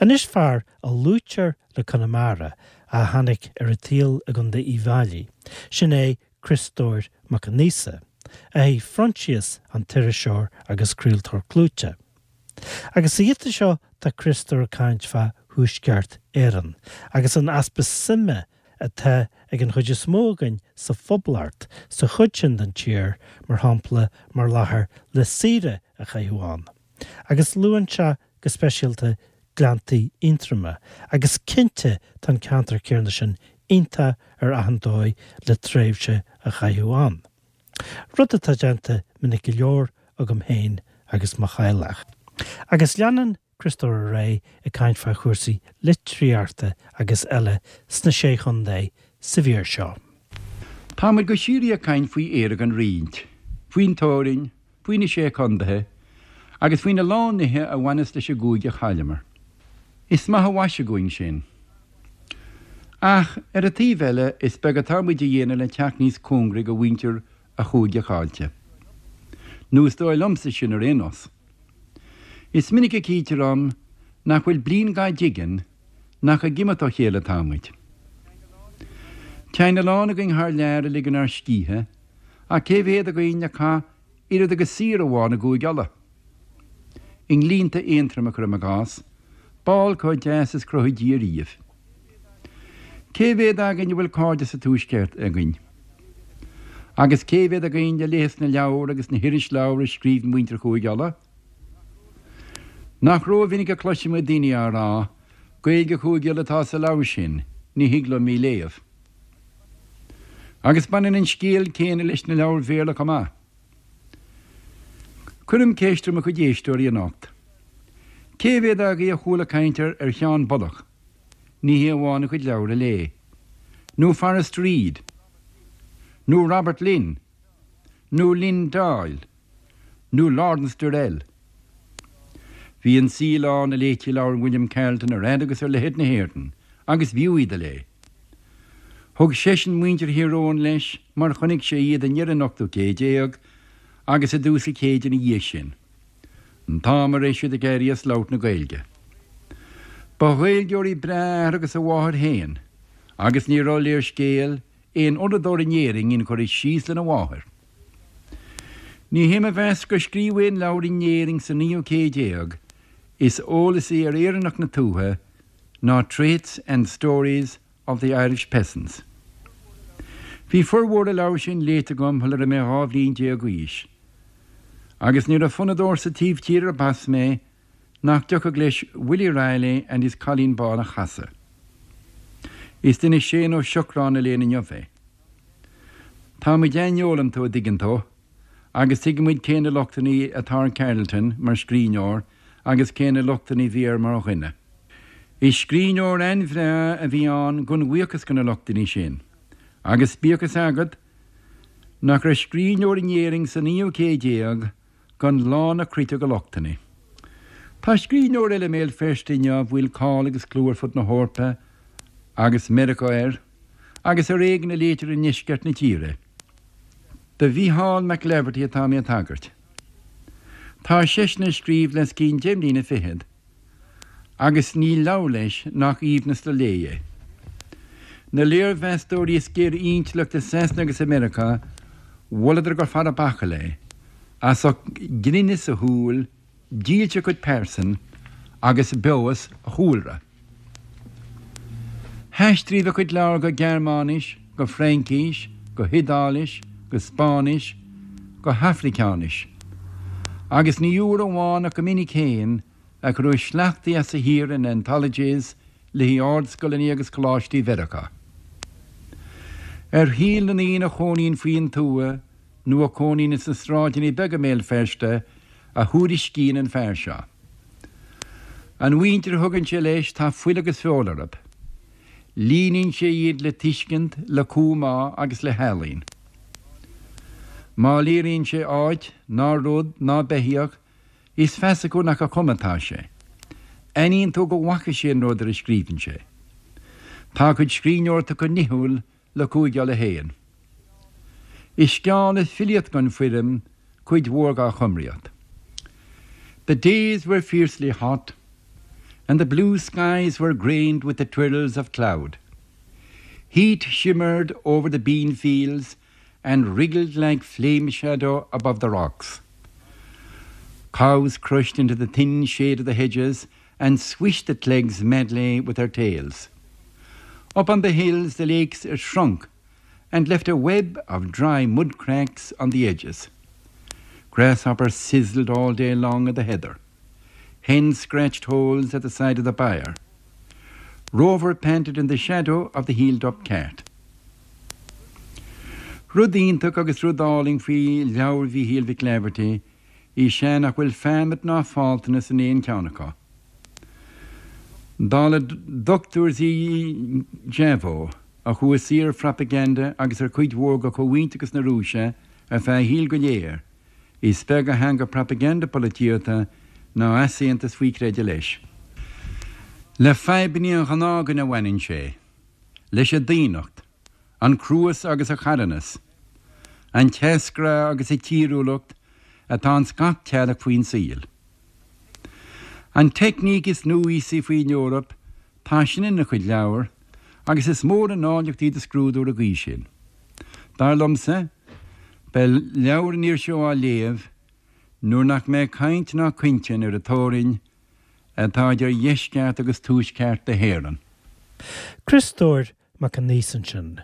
Anois fear a luaitear le Conamara a tháinig ar an tsaol i gContae Uíbh Fhailí, sin é Criostóir Mac Aonghusa, athair Phroinsias an t-iriseoir agus craoltóir clúiteach. Agus sa ghiota seo tá Criostóir ag caint fá Thuaisceart Éireann agus an easpa suime atá ag an chuid is mó againn sa Phoblacht sa chuid sin den tír, mar shampla, mar láthair le saoire a chaitheamh ann. Agus luann sé go speisialta Gleanntaí Aontroma, agus cinnte tá an ceantar céanna sin iontach ar achan dóigh le tréimhse a chaitheamh ann. Rud atá déanta minic go leor agam féin agus mo theaghlach. Agus leanann Criostóir ar aghaidh ag caint fá chúrsaí litríochta agus eile sna Sé Chontae sa mhír seo. Tá muid go síoraí ag caint faoi Éire gan roinnt, faoin teorainn, faoi na Sé Condaetha, agus faoina lán nithe a bhaineas leis an gcúige a chailleamar. Is maith an mhaise dhúinn sin. Ach, ar an taobh eile, is beag atá muid a dhéanamh le teacht níos cóngaraí go mhuintir an chúige chaillte. Nó is dóigh liomsa sin ar aon nós. Is minic a chítear dhom nach bhfuil bliain dhá dtigeann nach ag imeacht ó chéile atá muid. Téann a lán againn thar lear a ligean ár scíthe, ach cé mhéad againn a chaith oiread agus saoire amháin i gCúige Uladh? I nGleannta Aontroma, cuirim i gcás, ball chomh deas is chruthaigh Dia riamh. Cé mhéad againn a bhfuil cairde sa Tuaisceart againn? Agus cé mhéad againn a léigheas na leabhair agus na hirisleabhair a scríobhann muintir Chúige Uladh? Nach rómhinic a chloisimid daoine á rá, Gaeilge Chúige Uladh atá sa leabhar sin, ní thig liom í léamh. Agus baineann an scéal céanna leis na leabhair Bhéarla chomh maith. Cuirim ceist ar mo chuid éisteoirí anocht. Cé mhéad agaibh a chuala caint ar ar Sheán Bullock, ní hé amháin a chuid leabhar a léigh, nó Forrest Reid, nó Robert Lynd, nó Lynn Doyle, nó Lawrence Durrell? Bhí an saol ann a léití leabhair William Carleton ar fhad agus ar leithead na hÉireann, agus b'fhiú iad a léamh. Thug seisean muintir Thír Eoghain leis mar chonaic sé iad i ndeireadh an ochtú céid déag agus i dtús an chéid ina dhiaidh sin, an t-am a raibh siad ag éirí as labhairt na Gaeilge. Ba Ghaeilgeoirí breá a athair agus a mháthair féin agus ní raibh léirscéal aon uaireadóir in Éirinn inchurtha síos lena mháthair. Ní hé mo mheas gur scríobhadh aon leabhar in Éirinn sa naoú céad déag is eolasaí ar Éireannach na tuaithe ná Traits and Stories of the Irish Peasants. Bhí formhór an leabhair sin léite agam shula raibh mé 12 bhliain d'aois, agus ní raibh fonnadóir sa taobh tíre arb as mé nach dtiocfadh leis Willie Reilly and his Colleen Bawn a chasadh. Is duine Séan Ó Siocráin a léann inniu é. Tá muid aineolanta, a dtuigeann tú, agus tuigeann muid cé na lochtanna atá ar Carleton mar scríbhneoir agus cé na lochtanna a bhí air mar dhuine. Is scríbhneoir an-bhreá a bhí ann gan bhuíochas do na lochtanna sin, agus bíodh fhios agat nach raibh scríbhneoir in Éirinn sa naoú céad déag gan lán a chruite de lochtanna. Tá scríbhneoir eile i mBéal Feirste inniu a bhfuil cáil agus clú ar fud na hEorpa agus Meiriceá air, agus ar éigean a léitear i ndeisceart na tíre. Do Mhícheál McLaverty atá mé ag tagairt. Tá seisean ag scríobh le os cionn deich mbliana fichead agus níl leabhar leis nach aoibhneas le léamh é. Na léirmheastóirí is géire intleacht i Sasana agus i Meiriceá, mholadar gur fear bachall é, as ucht grinneas a shúl, dílse a chuid pearsan agus beoghas a chúlra. Haistríodh a chuid leabhar go Gearmáinis, go Fraincís, go hIodáilis, go Spáinnis, go hAfraiceáinis. Agus ní uair amháin ach go minic féin a cuireadh sleachtaí as a shaothar in anthologies le haghaidh ardscoileanna agus coláistí Mheiriceá. Ar shaol na ndaoine a chónaíonn faoin tuath nó a chónaíonn sna sráideanna beaga i mBéal Feirste a thuairiscíonn an fear seo. An mhuintir a thugann sé leis tá fuil agus feoil orthu. Líníonn sé iad le tuiscint, le cumhá agus le healaín. Má léiríonn sé áit, ná rud, ná beithíoch, is feasa acu nach a chuma atá sé. Aithníonn tú go bhfaca sé an rud ar a scríobhann sé. Tá a chuid scríbhneoireachta chomh nithiúil le Cúige Uladh féin. Is sceán is filíocht gan foirm cuid mhór dá chumraíocht. The days were fiercely hot. And the blue skies were grained with the twirls of cloud. Heat shimmered over the bean fields and wriggled like flame shadow above the rocks. Cows crushed into the thin shade of the hedges and swished the clegs madly with their tails. Up on the hills the lakes shrunk and left a web of dry mud cracks on the edges. Grasshoppers sizzled all day long at the heather. Hens scratched holes at the side of the byre. Rover panted in the shadow of the healed-up cat. Rud iontach agus rud álainn faoi leabhair Mhíchíl Mhic Laifeartaigh is ea nach bhfuil feamaid ná faltanas in aon cheann acu. Dála Dr Zhivago, a chuaigh saor ar phropaganda agus ar chuid mhór de chomhaontachas na Rúise ar feadh a shaoil go léir, is beag a theanga propaganda polaitíochta ná easaontas faoi chreideamh leis. Le fadhbanna an ghnáthdhuine a bhaineann sé, leis an daonnacht, an cruas agus an carthanas, an teasghrá agus an tíriúlacht atá ins gach teaghlach faoin saol. An teicníc is núíosaí faoin Eoraip, tá sin ina chuid leabhar, agus is mór an áilleacht í do scrúdú ar an gcaoi sin. Dar liomsa, beidh leabhair an fhir seo á léamh nuair nach mbeidh caint ná cointinn ar an teorainn atá idir dheisceart agus tuaisceart na hÉireann. Criostóir Mac Aonghusa ansin.